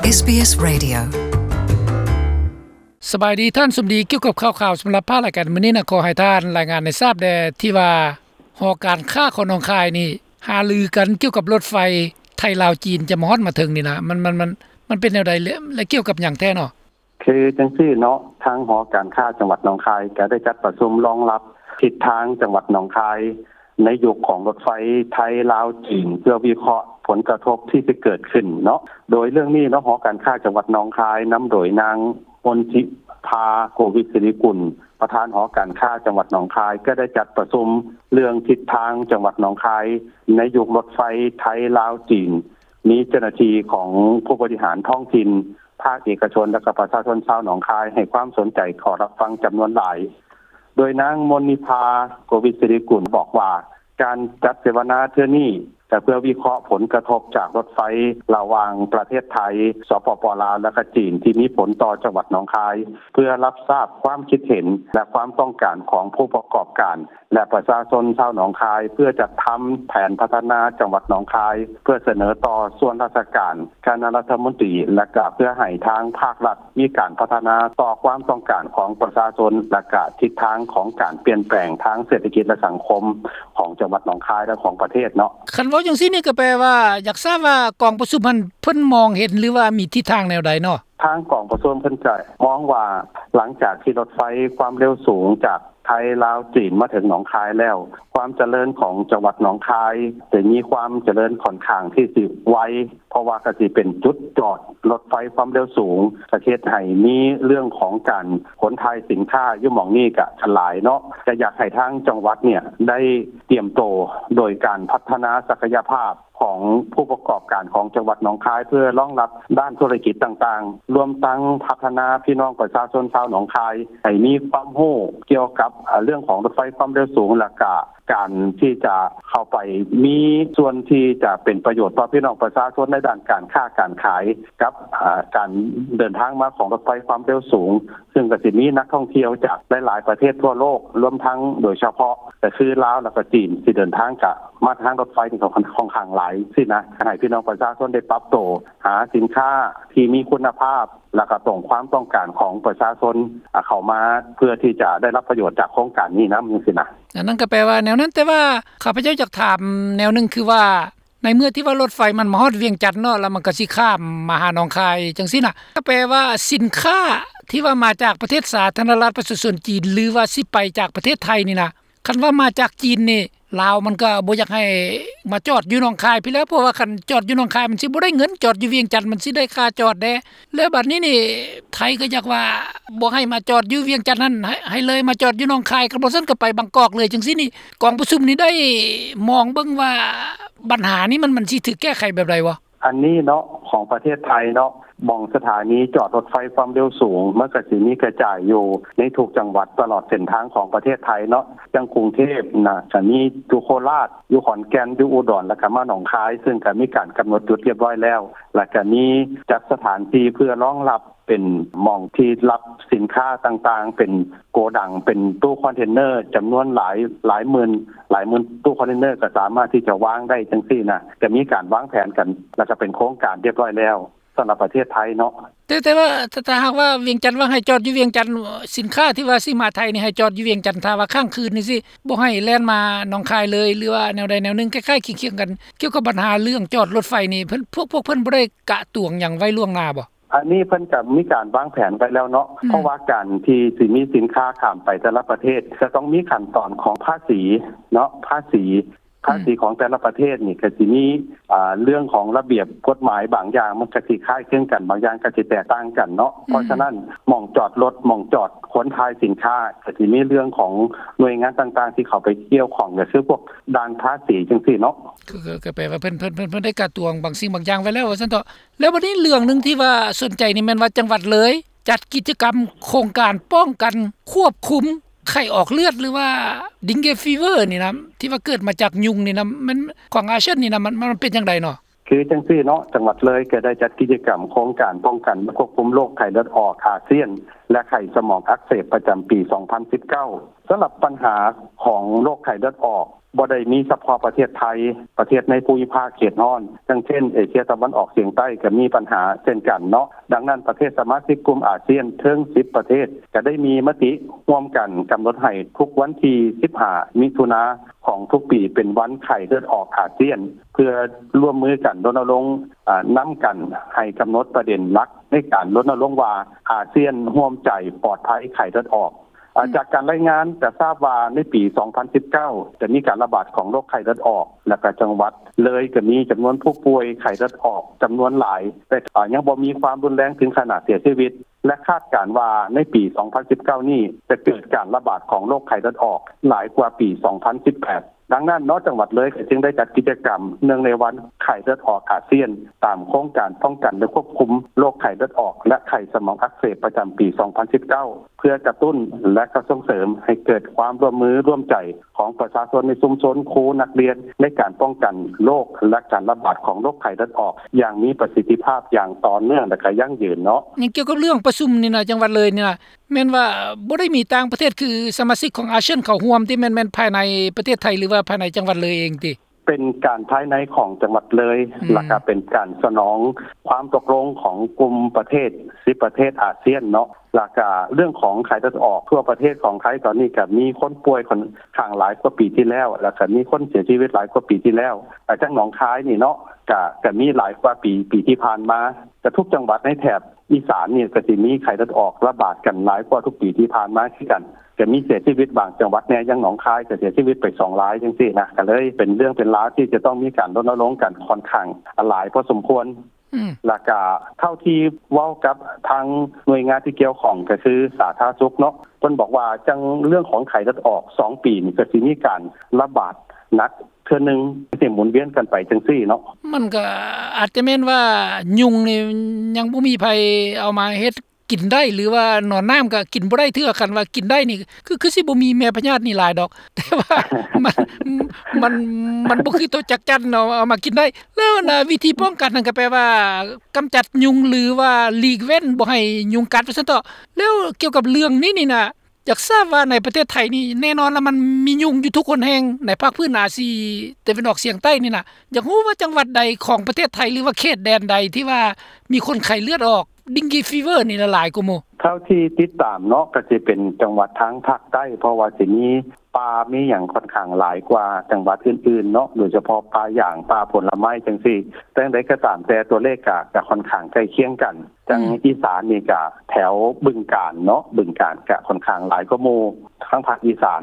ເອສບີເອສ Radio. ສະບາຍດີທ່ານສົມດີ ກ່ຽວກັບຂ່າວໆສຳລັບພາກລາຍການມື້ນີ້ນະ ຂໍໃຫ້ທ່ານລາຍງານໃຫ້ຊາບແດ່ ທີ່ວ່າຫໍການຄ້າຂອງໜອງຄາຍນີ້ ຫາລືກັນກ່ຽວກັບລົດໄຟໄທລາວຈີນ ຈະມາຮອດມາເຖິງນີ້ນະ ມັນ ມັນ ມັນ ມັນເປັນແນວໃດ ແລະ ແລະ ກ່ຽວກັບຫຍັງແທ້ເນາະ? ຄືຈັ່ງຊີ້ເນາະ ທາງຫໍການຄ້າຈັງຫວັດໜອງຄາຍ ກໍໄດ້ຈັດປະຊຸມລອງຮັບທິດທາງຈັງຫວັດໜອງຄາຍ ໃນຍຸກຂອງລົດໄຟໄທລາວຈີນ ເພື່ອວິເຄາະຜົນກະທົບທີ່ຈະເກີດຂຶ້ນເນາະ. ໂດຍເລື່ອງນີ້ເນາະ ຫໍການຄ້າຈັງຫວັດໜອງຄາຍ ນຳໂດຍນາງມົນທິພາ ໂກວິດສິລິກຸນ ປະທານຫໍການຄ້າຈັງຫວັດໜອງຄາຍ ກໍໄດ້ຈັດປະຊຸມເລື່ອງທິດທາງຈັງຫວັດໜອງຄາຍ ໃນຍຸກລົດໄຟໄທລາວຈີນ. ມີເຈົ້າໜ້າທີ່ຂອງຜູ້ບໍລິຫານທ້ອງຖິ່ນ, ພາກເອກະຊົນ ແລະ ກະປະຊາຊົນຊາວໜອງຄາຍ ໃຫ້ຄວາມສົນໃຈເຂົ້າຮັບຟັງຈຳນວນຫຼາຍ. ໂດຍນາງມົນນິພາ ໂກວິດສິລິກຸນ ບອກວ່າ ການຈັດເສວະນາເທື່ອນີ້ ກໍເພື່ອວິເຄາະຜົນກະທົບຈາກລົດໄຟລະຫວ່າງປະເທດໄທ ສປປ ລາວ ແລະ ກະຈີນ ທີ່ມີຜົນຕໍ່ຈັງຫວັດໜອງຄາຍ ເພື່ອຮັບຊາບຄວາມຄິດເຫັນ ແລະ ຄວາມຕ້ອງການຂອງຜູ້ປະກອບການ ແລະ ປະຊາຊົນຊາວໜອງຄາຍ ເພື່ອຈັດທຳແຜນພັດທະນາຈັງຫວັດໜອງຄາຍ ເພື່ອສະເໜີຕໍ່ສ່ວນລາຊະການ, ຄະນະລັດຖະມົນຕີ ແລະ ກະເພື່ອໃຫ້ທາງພາກລັດມີການພັດທະນາຕໍ່ຄວາມຕ້ອງການຂອງປະຊາຊົນ ແລະ ກະທິດທາງຂອງການປ່ຽນແປງທາງເສດຖະກິດ ແລະ ສັງຄົມຂອງຈັງຫວັດໜອງຄາຍ ແລະ ຂອງປະເທດເນາະ. ຄັນເວົ້າຈັ່ງຊີ້ນີ້ ກໍແປວ່າຢາກຊາບວ່າກອງປະຊຸມຫັ້ນ ເພິ່ນມອງເຫັນ ຫຼືວ່າມີທິດທາງແນວໃດເນາະ? ທາງກອງປະຊຸມເພິ່ນກະມອງວ່າ ຫຼັງຈາກທີ່ລົດໄຟຄວາມເລັວສູງຈາກໄທລາວຈີນມາເຖິງໜອງຄາຍແລ້ວ ຄວາມຈະເລີນຂອງຈັງຫວັດໜອງຄາຍ ຈະມີຄວາມຈະເລີນຂ້ອນຂ້າງທີ່ຊິໄວ ເພາະວ່າກະຊິເປັນຈຸດຈອດລົດໄຟຄວາມເລັວສູງ ກະເຮັດໃຫ້ມີເລື່ອງຂອງການຂົນຖ່າຍສິນຄ້າຢູ່ໝ່ອງນີ້ກະຫຼາຍເນາະ. ກະຢາກໃຫ້ທາງຈັງຫວັດເນ່ຍໄດ້ຕຽມໂຕໂດຍການພັດທະນາສັກກະຍະພາບ ຂອງຜູ້ປະກອບການຂອງຈັງຫວັດໜອງຄາຍ ເພື່ອລອງຮັບດ້ານທຸລະກິດຕ່າງໆ ລວມທັງພັດທະນາພີ່ນ້ອງປະຊາຊົນຊາວໜອງຄາຍ ໃຫ້ມີຄວາມຮູ້ກ່ຽວກັບ ເອີ່ ເລື່ອງຂອງລົດໄຟຄວາມເລັວສູງ ແລະ ກະການທີ່ຈະເຂົ້າໄປມີສ່ວນທີ່ຈະເປັນປະໂຫຍດຕໍ່ພີ່ນ້ອງປະຊາຊົນໃນດ້ານການຄ້າການຂາຍ ກັບ ເອີ່ ການເດີນທາງມາຂອງລົດໄຟຄວາມເລັວສູງ ຊຶ່ງກະຊິມີນັກທ່ອງທ່ຽວຈາກຫຼາຍໆປະເທດທົ່ວໂລກ ລວມທັງໂດຍສະເພາະກະຄືລາວ ແລະ ກະຈີນ ທີ່ເດີນທາງກະມາທາງລົດໄຟນີ້ກໍຄ່ອນຂ້າງຫຼາຍຊີ້ນະ ໃຫ້ພີ່ນ້ອງປະຊາຊົນໄດ້ປັບໂຕ ຫາສິນຄ້າທີ່ມີຄຸນນະພາບ ແລະ ກະຕົງຄວາມຕ້ອງການຂອງປະຊາຊົນ ເຂົ້າມາ ເພື່ອທີ່ຈະໄດ້ຮັບປະໂຫຍດຈາກໂຄງການນີ້ນຳ ຈັ່ງຊີ້ນະ. ອັນນັ້ນກໍແປວ່າແນວນັ້ນ ແຕ່ວ່າຂ້າພະເຈົ້າຢາກຖາມແນວໜຶ່ງ ຄືວ່າ ໃນເມື່ອທີ່ວ່າລົດໄຟມັນມາຮອດວຽງຈັນເນາະ ແລ້ວມັນກໍຊິຂ້າມມາຫາໜອງຄາຍຈັ່ງຊີ້ນະ ກໍແປວ່າສິນຄ້າທີ່ວ່າມາຈາກປະເທດສາທາລະນະລັດປະຊາຊົນຈີນ ຫຼືວ່າຊິໄປຈາກປະເທດໄທນີ້ນະ ຄັນວ່າມາຈາກຈີນນີ້ ລາວມັນກໍບໍ່ຢາກໃຫ້ມາຈອດຢູ່ໜອງຄາຍພີ້ແລ້ວ ເພາະວ່າຄັນຈອດຢູ່ໜອງຄາຍມັນຊິບໍ່ໄດ້ເງິນ ຈອດຢູ່ວຽງຈັນມັນຊິໄດ້ຄ່າຈອດແດ່ ແລ້ວບັດນີ້ນີ້ ໄທກໍຢາກວ່າບໍ່ໃຫ້ມາຈອດຢູ່ວຽງຈັນຫັ້ນ ໃຫ້ ໃຫ້ເລີຍມາຈອດຢູ່ໜອງຄາຍ ຄັນບໍ່ຊັ້ນກໍໄປບາງກອກເລີຍຈັ່ງຊີ້ນີ້ ກອງປະຊຸມນີ້ໄດ້ມອງເບິ່ງວ່າ ບັນຫານີ້ມັນ ມັນຊິຖືກແກ້ໄຂແບບໃດບໍ່? ອັນນີ້ເນາະ ຂອງປະເທດໄທເນາະ ໝ່ອງສະຖານີຈອດລົດໄຟຄວາມເລັວສູງ ມັນກະຊິມີກະຈາຍຢູ່ໃນທຸກຈັງຫວັດຕະຫຼອດເສັ້ນທາງຂອງປະເທດໄທເນາະ ຢ່າງກຸງເທບນະ ກະມີຢູ່ໂຄລາດ ຢູ່ຂອນແກ່ນ ຢູ່ອຸດອນ ແລ້ວກະມາໜອງຄາຍ ຊຶ່ງກະມີການກຳນົດຈຸດຮຽບຮ້ອຍແລ້ວ ແລ້ວກະມີຈັດສະຖານທີ່ເພື່ອລອງຮັບ ເປັນໝ່ອງທີ່ຮັບສິນຄ້າຕ່າງໆ ເປັນໂກດັງ ເປັນຕູ້ຄອນເທນເນີ ຈຳນວນຫຼາຍ ຫຼາຍໝື່ນ ຫຼາຍໝື່ນຕູ້ຄອນເທນເນີ ກໍສາມາດທີ່ຈະວາງໄດ້ຈັ່ງຊີ້ນະ ກໍມີການວາງແຜນກັນ ແລ້ວກໍເປັນໂຄງການຮຽບຮ້ອຍແລ້ວ ສຳລັບປະເທດໄທເນາະ. ແຕ່ ແຕ່ວ່າ ຖ້າ ຖ້າຫາກວ່າວຽງຈັນວ່າໃຫ້ຈອດຢູ່ວຽງຈັນ ສິນຄ້າທີ່ວ່າຊິມາໄທນີ້ໃຫ້ຈອດຢູ່ວຽງຈັນ ຖ້າວ່າຄ້າງຄືນນີ້ຊິບໍ່ໃຫ້ແລ່ນມາໜອງຄາຍເລີຍ ຫຼືວ່າແນວໃດແນວໜຶ່ງ ຄ້າຍໆຄຽງໆກັນ ກ່ຽວກັບບັນຫາເລື່ອງຈອດລົດໄຟນີ້ ເພິ່ນ ພວກ ພວກເພິ່ນບໍ່ໄດ້ກະຕວງຫຍັງໄວ້ລ່ວງໜ້າບໍ່? ອັນນີ້ເພິ່ນກໍມີການວາງແຜນໄວ້ແລ້ວເນາະ ອືມ ເພາະວ່າການທີ່ຊິມີສິນຄ້າຂ້າມໄປແຕ່ລະປະເທດ ຈະຕ້ອງມີຂັ້ນຕອນຂອງພາສີເນາະ ພາສີ ອືມ ພາສີຂອງແຕ່ລະປະເທດນີ້ກໍຊິມີ ອ່າ ເລື່ອງຂອງລະບຽບກົດໝາຍບາງຢ່າງ ມັນກໍຊິຄ້າຍຄຶງກັນ ບາງຢ່າງກໍຊິແຕກຕ່າງກັນເນາະ ອືມ ເພາະສະນັ້ນ ໝ່ອງຈອດລົດ ໝ່ອງຈອດຂົນຖ່າຍສິນຄ້າ ກໍຊິມີເລື່ອງຂອງໜ່ວຍງານຕ່າງໆທີ່ເຂົ້າໄປກ່ຽວຂ້ອງ ກໍຄືພວກດ່ານພາສີຈັ່ງຊີ້ເນາະ ກໍ ກໍ ກໍແປວ່າເພິ່ນ ເພິ່ນ ເພິ່ນ ເພິ່ນໄດ້ກະຕວງບາງສິ່ງບາງຢ່າງໄວ້ແລ້ວວ່າຊັ້ນເຖາະ. ແລ້ວບັດນີ້ເລື່ອງໜຶ່ງທີ່ວ່າສົນໃຈນີ້ແມ່ນວ່າຈັງຫວັດເລີຍຈັດກິດຈະກຳໂຄງການປ້ອງກັນຄວບຄຸມໄຂ້ອອກເລືອດ ຫຼືວ່າ Dengue Fever ນີ້ນະ ທີ່ວ່າເກີດມາຈາກຍຸງນີ້ນະ ມັນ ຂອງອາຊຽນນີ້ນະ ມັນ ມັນເປັນຈັ່ງໃດເນາະ? ຄືຈັ່ງຊີ້ເນາະ ຈັງຫວັດເລີຍກໍໄດ້ຈັດກິດຈະກຳໂຄງການປ້ອງກັນ ແລະ ຄວບຄຸມໂລກໄຂ້ເລືອດອອກອາຊຽນ ແລະ ໄຂ້ສະໝອງອັກເສບປະຈຳປີສອງພັນສິບເກົ້າ ສຳລັບບັນຫາຂອງໂລກໄຂ້ເລືອດອອກ ບໍ່ໄດ້ມີສະເພາະປະເທດໄທ, ປະເທດໃນພູມິພາກເຂດຮ້ອນ ຢ່າງເຊັ່ນ ເອເຊຍຕາເວັນອອກສຽງໃຕ້ ກໍມີບັນຫາເຊັ່ນກັນເນາະ. ດັ່ງນັ້ນ ປະເທດສະມາຊິກກຸ່ມອາຊຽນເຖິງສິບປະເທດ ກໍໄດ້ມີມະຕິຮ່ວມກັນກຳນົດໃຫ້ທຸກວັນທີສິບຫ້າ ມິຖຸນາຂອງທຸກປີ ເປັນວັນໄຂ້ເລືອດອອກອາຊຽນ ເພື່ອຮ່ວມມືກັນລົນນະລົງ ອາ ນຳກັນໃຫ້ກຳນົດປະເດັນຫຼັກໃນການລົນນະລົງວ່າ ອາຊຽນຮ່ວມໃຈປອດໄພໄຂ້ເລືອດອອກ. ອາ ອືມ ຈາກການລາຍງານຈະຊາບວ່າໃນປີສອງພັນສິບເກົ້າ ຈະມີການລະບາດຂອງໂລກໄຂ້ເລືອດອອກ ແລະ ກະຈັງຫວັດເລີຍກະມີຈຳນວນຜູ້ປ່ວຍໄຂ້ເລືອດອອກຈຳນວນຫຼາຍ ແຕ່ ອາ ຍັງບໍ່ມີຄວາມຮຸນແຮງເຖິງຂະໜາດເສຍຊີວິດ ແລະ ຄາດການວ່າໃນປີສອງພັນສິບເກົ້ານີ້ ຈະເກີດການລະບາດຂອງໂລກໄຂ້ເລືອດອອກຫຼາຍກວ່າປີສອງພັນສິບແປດ. ດັ່ງນັ້ນເນາະ ຈັງຫວັດເລີຍກໍຈຶ່ງໄດ້ຈັດກິດຈະກຳເນື່ອງໃນວັນໄຂ້ເລືອດອອກອາຊຽນ ຕາມໂຄງການປ້ອງກັນ ແລະ ຄວບຄຸມໂລກໄຂ້ເລືອດອອກ ແລະ ໄຂ້ສະໝອງອັກເສບປະຈຳປີສອງພັນສິບເກົ້າ ເພື່ອກະຕຸ້ນ ແລະ ກໍສົ່ງເສີມໃຫ້ເກີດຄວາມຮ່ວມມືຮ່ວມໃຈຂອງປະຊາຊົນໃນຊຸມຊົນ, ຄູ, ນັກຮຽນ ໃນການປ້ອງກັນໂລກ ແລະ ການລະບາດຂອງໂລກໄຂ້ເລືອດອອກຢ່າງມີປະສິດທິພາບ ຢ່າງຕໍ່ເນື່ອງ ແລະ ກໍຢັ້ງຢືນເນາະ. ໃນກ່ຽວກັບເລື່ອງປະຊຸມນີ້ນະ ຈັງຫວັດເລີຍນີ້ນະ ແມ່ນວ່າບໍ່ໄດ້ມີຕ່າງປະເທດ ຄືສະມາຊິກຂອງອາຊຽນເຂົ້າຮ່ວມຕິ ແມ່ນ ແມ່ນພາຍໃນປະເທດໄທ ຫຼືວ່າພາຍໃນຈັງຫວັດເລີຍເອງຕິ? ເປັນການພາຍໃນຂອງຈັງຫວັດເລີຍ ອືມ ແລະກະເປັນການສະໜອງຄວາມຕົກລົງຂອງກຸ່ມປະເທດສິບປະເທດອາຊຽນເນາະ ແລະກະເລື່ອງຂອງໄຂ້ເລືອດອອກທົ່ວປະເທດຂອງໄທ ຕອນນີ້ກະມີຄົນປ່ວຍຂ້ອນຂ້າງຫຼາຍກວ່າປີທີ່ແລ້ວ ແລະກະມີຄົນເສຍຊີວິດຫຼາຍກວ່າປີທີ່ແລ້ວ ແລະທາງໜອງຄາຍນີ້ເນາະ ກະ ກະມີຫຼາຍກວ່າປີ ປີທີ່ຜ່ານມາ ກະທຸກຈັງຫວັດໃນແຖບ ອີສານນີ້ກໍຊິມີໄຂ້ເລືອດອອກລະບາດກັນຫຼາຍກວ່າທຸກປີທີ່ຜ່ານມາຄືກັນ ກໍມີເສຍຊີວິດບາງຈັງຫວັດແດ່ ຢ່າງໜອງຄາຍກໍເສຍຊີວິດໄປສອງລາຍຈັ່ງຊີ້ນະ ກໍເລີຍເປັນເລື່ອງເປັນລາວທີ່ຈະຕ້ອງມີການລົນນະລົງກັນຂ້ອນຂ້າງຫຼາຍພໍສົມຄວນ ອືມ ແລ້ວກໍເທົ່າທີ່ເວົ້າກັບທາງໜ່ວຍງານທີ່ກ່ຽວຂ້ອງ ກໍຄືສາທາລະນະສຸກເນາະ ເພິ່ນບອກວ່າຈັ່ງເລື່ອງຂອງໄຂ້ເລືອດອອກສອງປີນີ້ ກໍຊິມີການລະບາດໜັກ ເທື່ອໜຶ່ງ ຊິໝູນວຽນກັນໄປຈັ່ງຊີ້ເນາະ. ມັນກໍອາດຈະແມ່ນວ່າຍຸງນີ້ຍັງບໍ່ມີໃຜເອົາມາເຮັດກິນໄດ້ ຫຼືວ່າໜອນນ້ຳກໍກິນບໍ່ໄດ້ເທື່ອ. ຄັນວ່າກິນໄດ້ນີ້ ຄື ຄືຊິບໍ່ມີແມ່ພະຍາດນີ້ຫຼາຍດອກ ແຕ່ວ່າມັນ ມັນ ມັນບໍ່ຄືໂຕຈັກຈັ່ນເນາະ ເອົາມາກິນໄດ້. ແລ້ວນະ ວິທີປ້ອງກັນນັ້ນກໍແປວ່າກຳຈັດຍຸງ ຫຼືວ່າຫຼີກເວັ້ນບໍ່ໃຫ້ຍຸງກັດວ່າຊັ້ນເຖາະ. ແລ້ວກ່ຽວກັບເລື່ອງນີ້ນີ້ນະ ຢາກຊາບວ່າໃນປະເທດໄທນີ້ ແນ່ນອນລະ ມັນມີຍຸງຢູ່ທຸກຫົນແຫ່ງໃນພາກພື້ນອາຊີຕາເວັນອອກສຽງໃຕ້ນີ້ນະ. ຢາກຮູ້ວ່າຈັງຫວັດໃດຂອງປະເທດໄທ ຫຼືວ່າເຂດແດນໃດທີ່ວ່າມີຄົນໄຂ້ເລືອດອອກ ເດັງກີຟີເວີ ນີ້ລະຫຼາຍກວ່າໝູ່? ເທົ່າທີ່ຕິດຕາມເນາະ ກໍຊິເປັນຈັງຫວັດທາງພາກໃຕ້ ເພາະວ່າຊິມີປ່າມີຫຍັງຂ້ອນຂ້າງຫຼາຍກວ່າຈັງຫວັດອື່ນໆເນາະ ໂດຍສະເພາະປ່າຢາງ ປ່າຜົນລະໄມ້ຈັ່ງຊີ້. ແຕ່ຢ່າງໃດກໍຕາມແຕ່ ຕົວເລກກໍ ກໍຂ້ອນຂ້າງໃກ້ຄຽງກັນ. ຈັ່ງ ອືມ ອີສານນີ້ກະແຖວບຶງການເນາະ ບຶງການກະຂ້ອນຂ້າງຫຼາຍກວ່າໝູ່ ທາງພາກອີສານ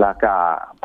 ແລ້ວກະ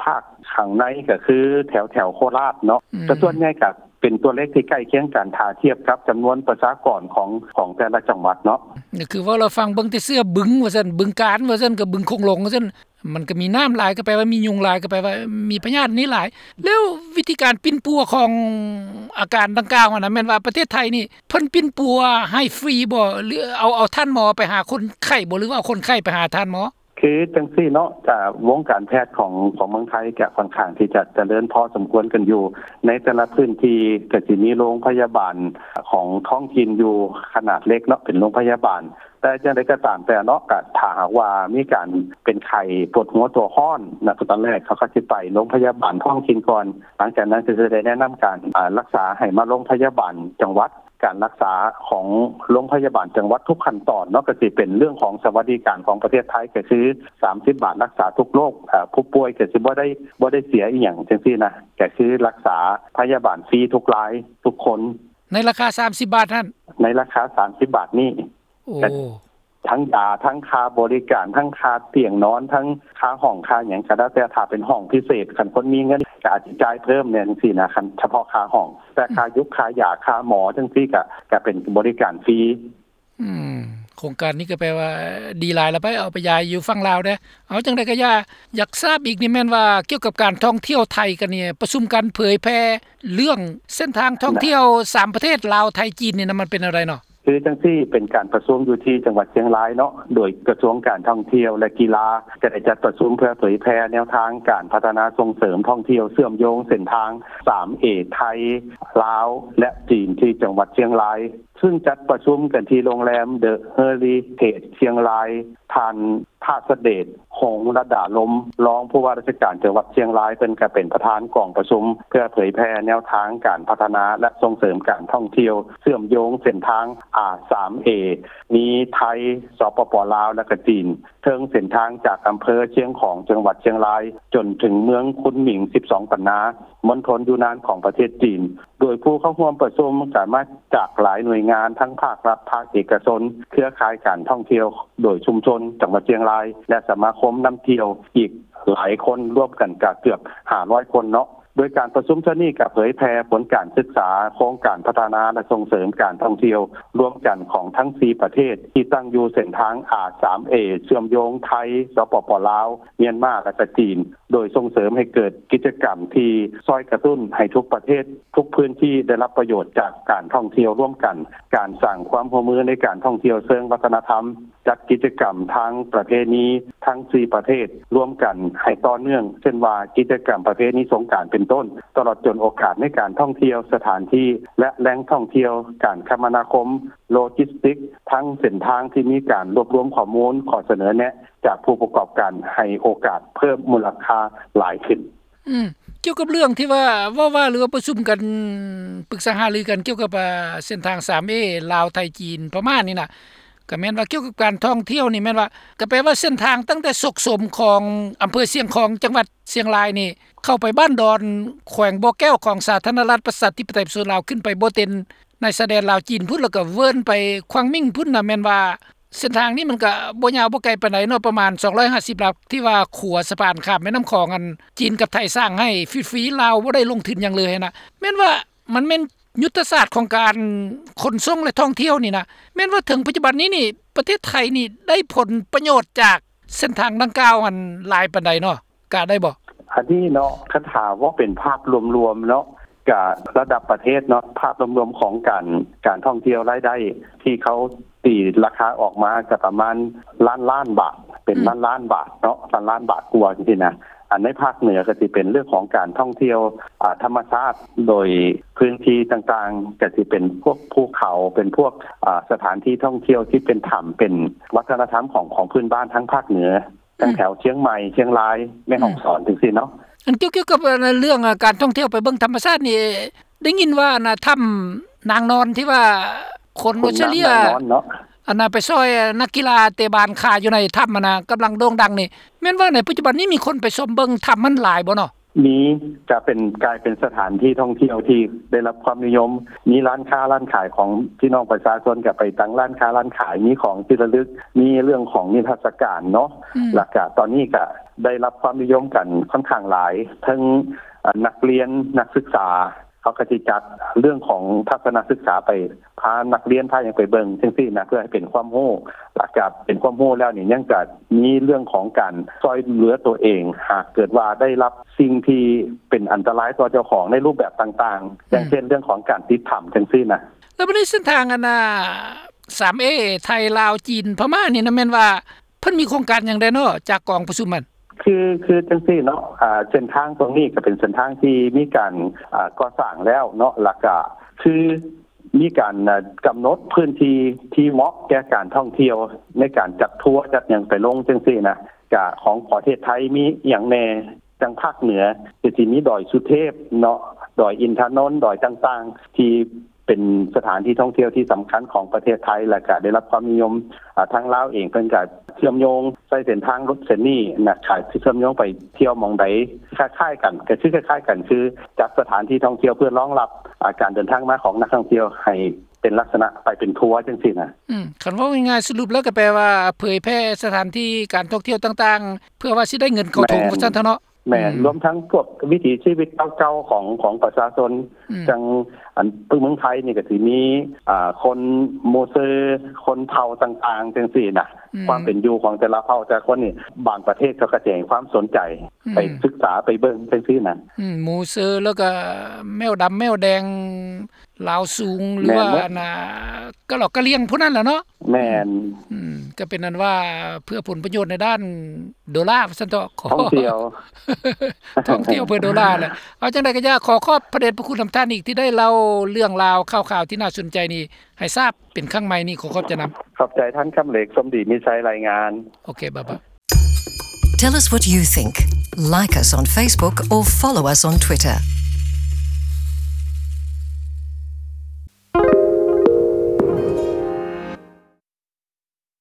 ພາກຂ້າງໃນກະຄືແຖວ ແຖວໂຄລາດເນາະ ອືມ ແຕ່ສ່ວນໃຫຍ່ກະເປັນຕົວເລກທີ່ໃກ້ຄຽງກັນ ຖ້າທຽບກັບຈຳນວນປະຊາກອນຂອງ ຂອງແຕ່ລະຈັງຫວັດເນາະ. ກໍຄືເວົ້າລະຟັງເບິ່ງແຕ່ເສືອບຶງວ່າຊັ້ນ ບຶງການວ່າຊັ້ນ ກັບບຶງໂຂງຫຼວງວ່າຊັ້ນ ມັນກໍມີນ້ຳຫຼາຍ ກໍແປວ່າມີຍຸງຫຼາຍ ກໍແປວ່າມີພະຍາດນີ້ຫຼາຍ. ແລ້ວວິທີການປິ່ນປົວຂອງອາການດັ່ງກ່າວຫັ້ນນະ ແມ່ນວ່າປະເທດໄທນີ້ເພິ່ນປິ່ນປົວໃຫ້ຟຣີບໍ່ ຫຼືເອົາ ເອົາທ່ານໝໍໄປຫາຄົນໄຂ້ບໍ່ ຫຼືວ່າເອົາຄົນໄຂ້ໄປຫາທ່ານໝໍ? ຄືຈັ່ງຊີ້ເນາະ ກະວົງການແພດຂອງ ຂອງເມືອງໄທກະຂ້ອນຂ້າງທີ່ຈະຈະເລີນພໍສົມຄວນກັນຢູ່. ໃນແຕ່ລະພື້ນທີ່ກະຊິມີໂຮງພະຍາບານຂອງທ້ອງຖິ່ນຢູ່ຂະໜາດເລັກເນາະ ເປັນໂຮງພະຍາບານ ແຕ່ຈັ່ງໃດກໍຕາມແຕ່ເນາະ ກໍຖ້າຫາກວ່າມີການເປັນໄຂ້ປວດຫົວຕົວຮ້ອນນະ ຕອນແລກເຂົາກໍຊິໄປໂຮງພະຍາບານທ້ອງຖິ່ນກ່ອນ ຫຼັງຈາກນັ້ນກໍຈະໄດ້ແນະນຳການ ອາ ລັກສາໃຫ້ມາໂຮງພະຍາບານຈັງຫວັດ. ການລັກສາຂອງໂຮງພະຍາບານຈັງຫວັດທຸກຂັ້ນຕອນເນາະ ກໍຊິເປັນເລື່ອງຂອງສະຫວັດດີການຂອງປະເທດໄທ ກໍຄືສາມສິບບາດລັກສາທຸກໂລກ ອາ ຜູ້ປ່ວຍກໍຊິບໍ່ໄດ້ ບໍ່ໄດ້ເສຍອີ່ຫຍັງຈັ່ງຊີ້ນະ ກໍຄືລັກສາພະຍາບານຟຣີທຸກລາຍທຸກຄົນ ໃນລາຄາສາມສິບບາດຫັ້ນ ໃນລາຄາສາມສິບບາດນີ້. ໂອ້ ທັງຢາ ທັງຄ່າບໍລິການ ທັງຄ່າຕຽງນອນ ທັງຄ່າຫ້ອງ ຄ່າຫຍັງກໍແລ້ວແຕ່ ຖ້າເປັນຫ້ອງພິເສດ ຄັນຄົນມີເງິນກໍອາດຊິຈ່າຍເພີ່ມແດ່ຈັ່ງຊີ້ນະ ຄັນສະເພາະຄ່າຫ້ອງ ແຕ່ຄ່າ ອືມ ຢູກ ຄ່າຢາ ຄ່າໝໍຈັ່ງຊີ້ ກໍ ກໍເປັນບໍລິການຟຣີ. ອືມ ໂຄງການນີ້ກໍແປວ່າດີຫຼາຍລະໄປ ເອົາໄປຢາຍຢູ່ຝັ່ງລາວແດ່. ເອົາ ຈັ່ງໃດກໍຢ່າ ຢາກຊາບອີກນີ້ແມ່ນວ່າ ກ່ຽວກັບການທ່ອງທ່ຽວໄທກັນນີ້ ປະຊຸມກັນເຜີຍແຜ່ເລື່ອງເສັ້ນທາງທ່ອງທ່ຽວສາມປະເທດ ລາວ ໄທ ຈີນນີ້ນະ ມັນເປັນແນວໃດເນາະ? ຄືຈັ່ງຊີ້ ເປັນການປະຊຸມຢູ່ທີ່ຈັງຫວັດຊຽງລາຍເນາະ ໂດຍກະຊວງການທ່ອງທ່ຽວ ແລະ ກິລາ ກໍໄດ້ຈັດປະຊຸມເພື່ອເຜີຍແຜ່ແນວທາງການພັດທະນາສົ່ງເສີມທ່ອງທ່ຽວເຊື່ອມໂຍງເສັ້ນທາງສາມເອ ໄທ ລາວ ແລະ ຈີນ ທີ່ຈັງຫວັດຊຽງລາຍ ຊຶ່ງຈັດປະຊຸມກັນທີ່ໂຮງແຮມ The Heritage ຊຽງລາຍ. ທ່ານ ທາດສະເດດ ຄົງລະດາລົມ ຮອງຜູ້ວ່າລາຊະການຈັງຫວັດຊຽງລາຍ ເພິ່ນກໍເປັນປະທານກອງປະຊຸມ ເພື່ອເຜີຍແຜ່ແນວທາງການພັດທະນາ ແລະ ສົ່ງເສີມການທ່ອງທ່ຽວ ເຊື່ອມໂຍງເສັ້ນທາງ ອາ ສາມເອ ມີໄທ, ສປປ ລາວ ແລະ ກະຈີນ ເທິງເສັ້ນທາງຈາກອຳເພີຊຽງຂອງ ຈັງຫວັດຊຽງລາຍ ຈົນເຖິງເມືອງຄຸນໝິງ ສິບສອງ ປັນນາ ມົນທົນຢູນານຂອງປະເທດຈີນ. ໂດຍຜູ້ເຂົ້າຮ່ວມປະຊຸມກໍມາຈາກຫຼາຍໜ່ວຍງານ ທັງພາກລັດ, ພາກເອກະຊົນ, ເຄືອຂ່າຍການທ່ອງທ່ຽວໂດຍຊຸມຊົນຈັງຫວັດຊຽງລາຍ ແລະ ສະມາຄົມນຳທ່ຽວອີກຫຼາຍຄົນ ລວມກັນກໍເກືອບຫ້າຮ້ອຍຄົນເນາະ. ໂດຍການປະຊຸມເທື່ອນີ້ກໍເຜີຍແຜ່ຜົນການສຶກສາໂຄງການພັດທະນາ ແລະ ສົ່ງເສີມການທ່ອງທ່ຽວລວມກັນຂອງທັງສີ່ປະເທດ ທີ່ຕັ້ງຢູ່ເສັ້ນທາງ ອາ ສາມເອ ເຊື່ອມໂຍງໄທ, ສປປ ລາວ, ມຽນມາ ແລະ ກະຈີນ ໂດຍສົ່ງເສີມໃຫ້ເກີດກິດຈະກຳທີ່ຊ່ອຍກະຕຸ້ນໃຫ້ທຸກປະເທດ, ທຸກພື້ນທີ່ໄດ້ຮັບປະໂຫຍດຈາກການທ່ອງທ່ຽວຮ່ວມກັນ, ການສ້າງຄວາມຮ່ວມມືໃນການທ່ອງທ່ຽວເຊີງວັດທະນະທຳ, ຈັດກິດຈະກຳທາງປະເພນີທັງສີ່ປະເທດຮ່ວມກັນໃຫ້ຕໍ່ເນື່ອງ, ເຊັ່ນວ່າກິດຈະກຳປະເພນີສົງການເປັນຕົ້ນ, ຕະຫຼອດຈົນໂອກາດໃນການທ່ອງທ່ຽວ, ສະຖານທີ່ ແລະ ແຫຼ່ງທ່ອງທ່ຽວ, ການຄະມະນາຄົມ, ໂລຈິສຕິກ, ທັງເສັ້ນທາງທີ່ມີການລວບລວມຂໍ້ມູນ, ຂໍ້ສະເໜີແນະຈາກຜູ້ປະກອບການ ໃຫ້ໂອກາດເພີ່ມມູນລະຄ່າຫຼາຍຂຶ້ນ. ອືມ ກ່ຽວກັບເລື່ອງທີ່ວ່າ ເວົ້າວ່າ ຫຼືວ່າປະຊຸມກັນ ປຶກສາຫາລືກັນກ່ຽວກັບ ອ່າ ເສັ້ນທາງ ສາມເອ ລາວ ໄທ ຈີນ ພະມ້ານີ້ນະ ກໍແມ່ນວ່າກ່ຽວກັບການທ່ອງທ່ຽວນີ້ ແມ່ນວ່າ ກໍແປວ່າເສັ້ນທາງຕັ້ງແຕ່ສົກສົມຂອງອຳເພີຊຽງຂອງ ຈັງຫວັດຊຽງລາຍນີ້ ເຂົ້າໄປບ້ານດອນ ແຂວງບໍ່ແກ້ວ ຂອງສາທາລະນະລັດປະຊາທິປະໄຕປະຊາຊົນລາວ ຂຶ້ນໄປບໍ່ເຕັນ ໃນຊາຍແດນລາວຈີນພຸ້ນ ແລ້ວກໍເວີນໄປຂວາງມິງພຸ້ນນະ ແມ່ນວ່າເສັ້ນທາງນີ້ມັນກໍບໍ່ຍາວບໍ່ໄກປານໃດເນາະ ປະມານສອງຮ້ອຍຫ້າສິບຫຼັກ ທີ່ວ່າຂົວສະພານຂ້າມແມ່ນ້ຳຂອງ ອັນຈີນກັບໄທສ້າງໃຫ້ຟຣີໆ ລາວບໍ່ໄດ້ລົງທຶນຫຍັງເລີຍຫັ້ນນະ. ແມ່ນວ່າມັນແມ່ນຍຸດທະສາດຂອງການຂົນສົ່ງ ແລະ ທ່ອງທ່ຽວນີ້ນະ ແມ່ນວ່າເຖິງປັດຈຸບັນນີ້ນີ້ ປະເທດໄທນີ້ໄດ້ຜົນປະໂຫຍດຈາກເສັ້ນທາງດັ່ງກ່າວຫັ້ນຫຼາຍປານໃດເນາະ? ກະໄດ້ບໍ່? ອັນນີ້ເນາະ ຄັນຖ້າເວົ້າເປັນພາບລວມໆເນາະ ກະລະດັບປະເທດເນາະ ພາບລວມໆຂອງການ ການທ່ອງທ່ຽວລາຍໄດ້ທີ່ເຂົາຕີລາຄາອອກມາກະປະມານລ້ານລ້ານບາດ ເປັນ ອືມ ລ້ານລ້ານບາດເນາະ ລ້ານລ້ານບາດກວ່າຈັ່ງຊີ້ນະ. ອັນໃນພາກເໜືອກະຊິເປັນເລື່ອງຂອງການທ່ອງທ່ຽວ ອ່າ ທຳມະຊາດ ໂດຍພື້ນທີ່ຕ່າງໆ ກະຊິເປັນພວກພູເຂົາ ເປັນພວກ ອ່າ ສະຖານທີ່ທ່ອງທ່ຽວທີ່ເປັນຖ້ຳ ເປັນວັດທະນະທຳຂອງ ຂອງພື້ນບ້ານທາງພາກເໜືອ ທັງແຖວຊຽງໃໝ່ ຊຽງລາຍ ແມ່ ອືມ ຮ່ອງສອນ ຈັ່ງຊີ້ເນາະ. ອັນກ່ຽວ ກ່ຽວກັບເລື່ອງການທ່ອງທ່ຽວໄປເບິ່ງທຳມະຊາດນີ້ ໄດ້ຍິນວ່ານະ ຖ້ຳນາງນອນທີ່ວ່າຄົນອົດສະເລຍ ອັນນະໄປຊ່ອຍນັກກິລາເຕະບານຂາຢູ່ໃນຖ້ຳຫັ້ນນະ ກຳລັງໂດ່ງດັງນີ້ ແມ່ນວ່າໃນປັດຈຸບັນນີ້ມີຄົນໄປຊົມເບິ່ງຖ້ຳຫັ້ນຫຼາຍບໍ່ເນາະ? ມີ ກະເປັນ ກາຍເປັນສະຖານທີ່ທ່ອງທ່ຽວທີ່ໄດ້ຮັບຄວາມນິຍົມ ມີຮ້ານຄ້າຮ້ານຂາຍຂອງພີ່ນ້ອງປະຊາຊົນ ກະໄປຕັ້ງຮ້ານຄ້າຮ້ານຂາຍ ມີຂອງທີ່ລະລຶກ ມີເລື່ອງຂອງນິທັດສະການເນາະ ອືມ ແລ້ວກະຕອນນີ້ກະໄດ້ຮັບຄວາມນິຍົມກັນຂ້ອນຂ້າງຫຼາຍ ເຖິງ ເອີ ນັກຮຽນ ນັກສຶກສາ ເຂົາກະຊິຈັດເລື່ອງຂອງທັດສະນະສຶກສາໄປ ພານັກຮຽນພາຫຍັງໄປເບິ່ງຈັ່ງຊີ້ນະ ເພື່ອໃຫ້ເປັນຄວາມຮູ້ ຫຼັງຈາກເປັນຄວາມຮູ້ແລ້ວນີ້ ຍັງຈະມີເລື່ອງຂອງການຊ່ອຍເຫຼືອຕົວເອງ ຫາກເກີດວ່າໄດ້ຮັບສິ່ງທີ່ເປັນອັນຕະລາຍຕໍ່ເຈົ້າຂອງໃນຮູບແບບຕ່າງໆ ອືມ ຢ່າງເຊັ່ນເລື່ອງຂອງການຕິດຖ້ຳຈັ່ງຊີ້ນະ. ແລ້ວບັດນີ້ເສັ້ນທາງອັນນ່າ ສາມເອ ໄທ ລາວ ຈີນ ພະມ້ານີ້ນະ ແມ່ນວ່າເພິ່ນມີໂຄງການຫຍັງແດ່ເນາະ ຈາກກອງປະຊຸມຫັ້ນ? ຄື ຄືຈັ່ງຊີ້ເນາະ ອ່າ ເສັ້ນທາງຕົງນີ້ກະເປັນເສັ້ນທາງທີ່ມີການ ອ່າ ກໍ່ສ້າງແລ້ວເນາະ ແລ້ວກະຄື ມີການ ອ່າ ກຳນົດພື້ນທີ່ທີ່ເໝາະແກ່ການທ່ອງທ່ຽວ ໃນການຈັດທົວ ຈັດຫຍັງໄປລົງຈັ່ງຊີ້ນະ ກະຂອງປະເທດໄທມີອີ່ຫຍັງແດ່ ຈັ່ງພາກເໜືອກະຊິມີດອຍສຸເທບເນາະ ດອຍອິນທະນົນ ດອຍຕ່າງໆ ທີ່ເປັນສະຖານທີ່ທ່ອງທ່ຽວທີ່ສຳຄັນຂອງປະເທດໄທ ແລ້ວກະໄດ້ຮັບຄວາມນິຍົມ ອ່າ ທາງລາວເອງເພິ່ນກະເຊື່ອມໂຍງໃຊ້ເສັ້ນທາງລົດເສັ້ນນີ້ນະ ກະຊິເຊື່ອມໂຍງໄປທ່ຽວໝ່ອງໃດ ຄ້າຍໆກັນ ກະຄືຄ້າຍໆກັນ ຄືຈັດສະຖານທີ່ທ່ອງທ່ຽວເພື່ອຮອງຮັບ ອ່າ ການເດີນທາງມາຂອງນັກທ່ອງທ່ຽວໃຫ້ ເປັນລັກສະນະໄປເປັນທົວຈັ່ງຊີ້ນະ. ອືມ ຄັນເວົ້າງ່າຍໆ ສະຫຼຸບແລ້ວກໍແປວ່າເຜີຍແຜ່ສະຖານທີ່ການທ່ອງທ່ຽວຕ່າງໆ ເພື່ອວ່າຊິໄດ້ເງິນເຂົ້າຖົງ ແມ່ນ ວ່າຊັ້ນເຖາະເນາະ. ແມ່ນ ອືມ ລວມທັງພວກວິຖີຊີວິດເກົ່າໆຂອງ ຂອງປະຊາຊົນ ອືມ ຈັ່ງ ອັນ ເມືອງໄທນີ້ກໍຊິມີ ອ່າ ຄົນມູເຊີ ຄົນເຜົ່າຕ່າງໆຈັ່ງຊີ້ນະ ອືມ ຄວາມເປັນຢູ່ຂອງແຕ່ລະເຜົ່າແຕ່ລະຄົນນີ້ ບາງປະເທດເຂົາກໍຈະໃຫ້ຄວາມສົນໃຈ ອືມ ໄປສຶກສາໄປເບິ່ງຈັ່ງຊີ້ນະ. ອືມ ມູເຊີ ແລ້ວກໍແມວດຳແມວແດງ ລາວສູງ ຫຼືວ່າ ແມ່ນເບິດ ອັນນ່າ ກະຫຼອກກະຫຼຽງພວກນັ້ນແຫຼະເນາະ. ແມ່ນ ອືມ ກະເປັນອັນວ່າເພື່ອຜົນປະໂຫຍດໃນດ້ານໂດລາ ວ່າຊັ້ນເຖາະ ທ່ອງທ່ຽວ ທ່ອງທ່ຽວເພື່ອໂດລາແຫຼະ. ເອົາຈັ່ງໃດກໍຢ່າ ຂໍຂອບພະເດດພະຄຸນນຳທ່ານອີກ ທີ່ໄດ້ເລົ່າເລື່ອງລາວຂ່າວໆທີ່ໜ້າສົນໃຈນີ້ໃຫ້ຊາບເປັນຄັ້ງໃໝ່ນີ້ ຂໍຂອບໃຈນຳ. ຂອບໃຈທ່ານຄຳເຫຼັກ ສົມດີມີໄຊ ລາຍງານ. ໂອເຄ ບາຍບາຍ. Tell us what you think. Like us on Facebook or follow us on Twitter.